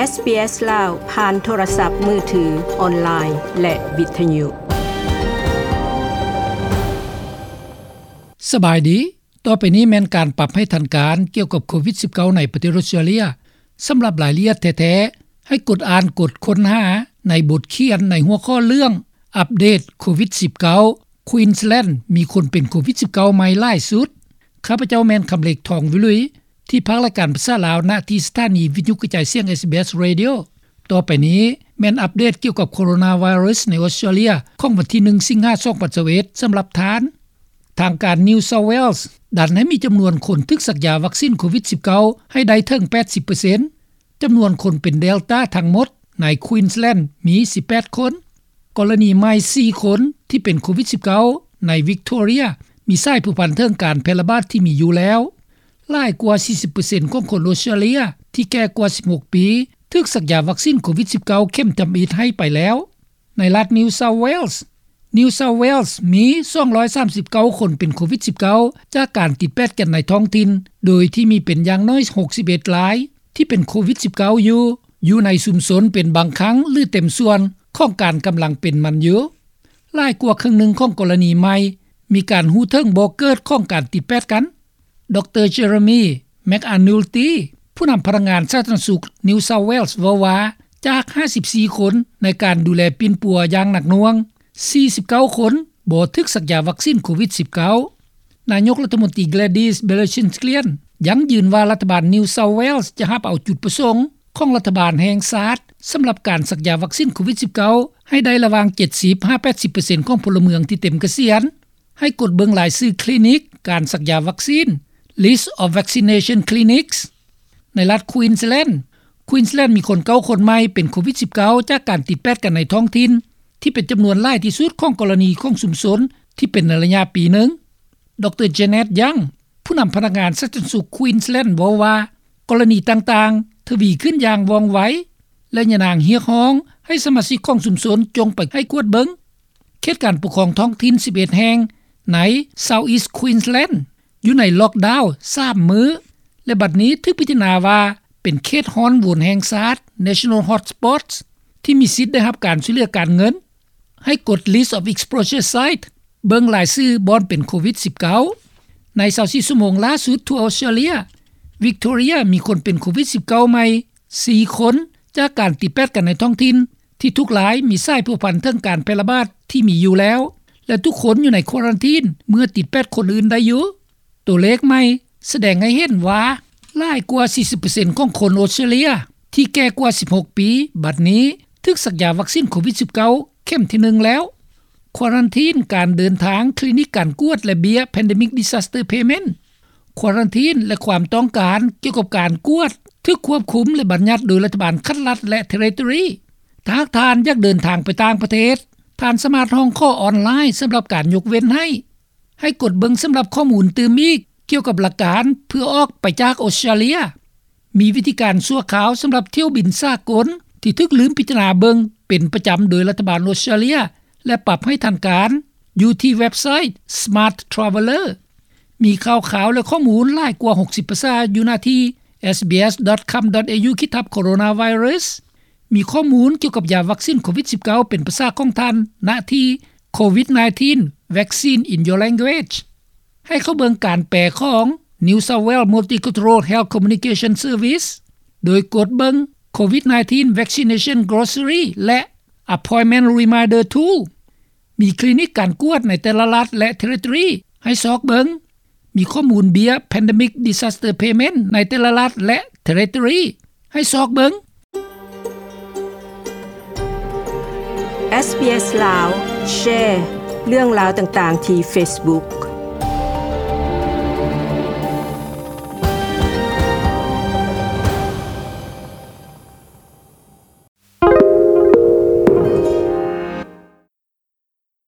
ເອສ ບີ ເອສ ລາວ ຜ່ານໂທລະສັບມືຖື, ອອນລາຍ ແລະ ວິທະຍຸ. ສະບາຍດີ. ຕໍ່ໄປນີ້ແມ່ນການປັບໃຫ້ທັນການກ່ຽວກັບໂຄວິດສິບເກົ້າໃນປະເທດອົດສະຕຣາເລຍ. ສຳລັບລາຍລະອຽດແທ້ໆ, ໃຫ້ກົດອ່ານກົດຄົ້ນຫາໃນບົດຂຽນໃນຫົວຂໍ້ເລື່ອງ ອັບເດດໂຄວິດສິບເກົ້າ Queensland ມີຄົນເປັນໂຄວິດສິບເກົ້າໃໝ່ຫຼາຍສຸດ. ຂ້າພະເຈົ້າແມ່ນຄຳເລັກ ທອງວິລຸຍ ທີ່ພາກລາຍການພາສາລາວ ນະທີ່ສະຖານີວິທະຍຸກະຈາຍສຽງ ເອສ ບີ ເອສ Radio. ຕໍ່ໄປນີ້ແມ່ນອັບເດດກ່ຽວກັບໂຄໂຣນາໄວຣັສໃນອົດສະຕຣາເລຍ ຂອງວັນທີໜຶ່ງ ສິງຫາ ສອງພັນຊາວເອັດ ສຳລັບທ່ານ. ທາງການ New South Wales ດັນໃຫ້ມີຈຳນວນຄົນຖືກສັກຢາວັກຊີນໂຄວິດສິບເກົ້າໃຫ້ໄດ້ເຖິງແປດສິບເປີເຊັນ. ຈຳນວນຄົນເປັນ Delta ທັງໝົດໃນ Queensland ມີສິບແປດຄົນ, ກໍລະນີໃໝ່ສີ່ຄົນທີ່ເປັນໂຄວິດສິບເກົ້າໃນ Victoria ມີສາຍພົວພັນເຖິງການແຜ່ລະບາດທີ່ມີຢູ່ແລ້ວ. ຫຼາຍກວ່າສີ່ສິບເປີເຊັນຂອງຄົນອົດສະຕຣາເລຍທີ່ແກ່ກວ່າສິບຫົກປີ ຖືກສັກຢາວັກຊີນໂຄວິດສິບເກົ້າເຂັມທຳອິດໃຫ້ໄປແລ້ວ. ໃນລັດ New South Wales, New South Wales ມີສອງຮ້ອຍສາມສິບເກົ້າຄົນເປັນໂຄວິດສິບເກົ້າ ຈາກການຕິດແປດກັນໃນທ້ອງຖິ່ນ, ໂດຍທີ່ມີເປັນຢ່າງໜ້ອຍຫົກສິບເອັດລາຍທີ່ເປັນໂຄວິດສິບເກົ້າຢູ່, ຢູ່ໃນຊຸມຊົນເປັນບາງຄັ້ງ ຫຼື ເຕັມສ່ວນຂອງການກຳລັງເປັນມັນຢູ່. ຫຼາຍກວ່າເຄິ່ງໜຶ່ງຂອງກໍລະນີໃໝ່ມີການຮູ້ເຖິງບໍ່ເກີດຂອງການຕິດແປດກັນ. ດຣ Jeremy McAnulty ຜູ້ນຳພະນັກງານສາທາລະນະສຸກ New South Wales ເວົ້າວ່າ ຈາກຫ້າສິບສີ່ຄົນໃນການດູແລປິ່ນປົວຢ່າງໜັກໜ່ວງ, ສີ່ສິບເກົ້າຄົນບໍ່ຖືກສັກຢາວັກຊີນໂຄວິດສິບເກົ້າ. ນາຍົກລັດຖະມົນຕີ Gladys Berejiklian ຢັ້ງຢືນວ່າລັດຖະບານ New South Wales ຈະຮັບເອົາຈຸດປະສົງຂອງລັດຖະບານແຫ່ງຊາດ ສຳລັບການສັກຢາວັກຊີນໂຄວິດສິບເກົ້າໃຫ້ໄດ້ລະຫວ່າງເຈັດສິບຫາແປດສິບເປີເຊັນຂອງພົນລະເມືອງທີ່ເຕັມກະສຽນ. ໃຫ້ກົດເບິ່ງລາຍຊື່ຄລີນິກການສັກຢາວັກຊີນ List of Vaccination Clinics. ໃນລັດ Queensland, Queensland ມີຄົນເກົ້າຄົນໃໝ່ເປັນໂຄວິດສິບເກົ້າ ຈາກການຕິດແປດກັນໃນທ້ອງຖິ່ນ ທີ່ເປັນຈຳນວນຫຼາຍທີ່ສຸດຂອງກໍລະນີຂອງຊຸມຊົນທີ່ເປັນໃນໄລຍະປີໜຶ່ງ. ດຣ Janet Young ຜູ້ນຳພະນັກງານສາທາລະນະສຸກ Queensland ເວົ້າວ່າ ກໍລະນີຕ່າງໆທະວີຂຶ້ນຢ່າງວ່ອງໄວ ແລະ ຍານາງຮຽກຮ້ອງໃຫ້ສະມາຊິກຂອງຊຸມຊົນຈົ່ງໄປໃຫ້ກວດເບິ່ງ. ເຂດການປົກຄອງທ້ອງຖິ່ນສິບເອັດແຫ່ງໃນ South East Queensland ຢູ່ໃນລັອກດາວສາມມື້ ແລະ ບັດນີ້ຖືກພິຈາລະນາວ່າເປັນເຂດຮ້ອນໂຫວນແຫ່ງຊາດ National Hotspots ທີ່ມີສິດໄດ້ຮັບການຊ່ວຍເຫຼືອການເງິນ. ໃຫ້ກົດ List of Exposure Site ເບິ່ງລາຍຊື່ບ່ອນເປັນໂຄວິດສິບເກົ້າ. ໃນຊາວສີ່ຊົ່ວໂມງລ່າສຸດທົ່ວອົດສະຕຣາເລຍ, Victoria ມີຄົນເປັນໂຄວິດສິບເກົ້າໃໝ່ສີ່ຄົນ ຈາກການຕິດແປດກັນໃນທ້ອງຖິ່ນ ທີ່ທຸກລາຍມີສາຍພົວພັນເຖິງການແຜ່ລະບາດທີ່ມີຢູ່ແລ້ວ ແລະ ທຸກຄົນຢູ່ໃນຄວາຣັນທີນເມື່ອຕິດແປດຄົນອື່ນໄດ້ຢູ່. ຕົວເລກໃໝ່ສະແດງໃຫ້ເຫັນວ່າ ຫຼາຍກວ່າສີ່ສິບເປີເຊັນຂອງຄົນອົດສະຕຣາເລຍທີ່ແກ່ກວ່າສິບຫົກປີ ບັດນີ້ຖືກສັກຢາວັກຊີນໂຄວິດສິບເກົ້າເຂັມທີໜຶ່ງແລ້ວ. ຄວາຣັນທີນ, ການເດີນທາງ, ຄລີນິກການກວດ ແລະ ເບ້ຍ Pandemic Disaster Payment. ຄວາຣັນທີນ ແລະ ຄວາມຕ້ອງການກ່ຽວກັບການກວດຖືກຄວບຄຸມ ແລະ ບັນຍັດໂດຍລັດຖະບານຂັ້ນລັດ ແລະ Territory. ຖ້າຫາກທ່ານຢາກເດີນທາງໄປຕ່າງປະເທດ, ທ່ານສາມາດຮ້ອງຂໍອອນລາຍສຳລັບການຍົກເວັ້ນໃຫ້. ໃຫ້ກົດເບິ່ງສຳລັບຂໍ້ມູນຕື່ມອີກກ່ຽວກັບຫຼັກການເພື່ອອອກໄປຈາກອົດສະຕຣາເລຍ. ມີວິທີການຊົ່ວຄາວສຳລັບຖ້ຽວບິນສາກົນທີ່ຖືກລືມພິຈາລະນາເບິ່ງເປັນປະຈຳໂດຍລັດຖະບານອົດສະຕຣາເລຍ ແລະ ປັບໃຫ້ທັນການ ຢູ່ທີ່ເວັບໄຊ Smart Traveller. ມີຂ່າວຄາວ ແລະ ຂໍ້ມູນຫຼາຍກວ່າຫົກສິບພາສາຢູ່ໜ້າທີ່ SBS.com.au ຂີດທັບ Coronavirus. ມີຂໍ້ມູນກ່ຽວກັບຢາວັກຊີນໂຄວິດສິບເກົ້າເປັນພາສາຂອງທ່ານ ນະທີ່ COVID nineteen Vaccine in Your Language. ໃຫ້ເຂົ້າເບິ່ງການແປຂອງ New South Wales Multicultural Health Communication Service ໂດຍກົດເບິ່ງ COVID nineteen Vaccination Glossary ແລະ Appointment Reminder Tool. ມີຄລີນິກການກວດໃນແຕ່ລະລັດ ແລະ Territory ໃຫ້ຊອກເບິ່ງ. ມີຂໍ້ມູນເບ້ຍ Pandemic Disaster Payment ໃນແຕ່ລະລັດ ແລະ Territory ໃຫ້ຊອກເບິ່ງ. SBS ລາວ ແຊເລື່ອງລາວຕ່າງໆທີ່ Facebook.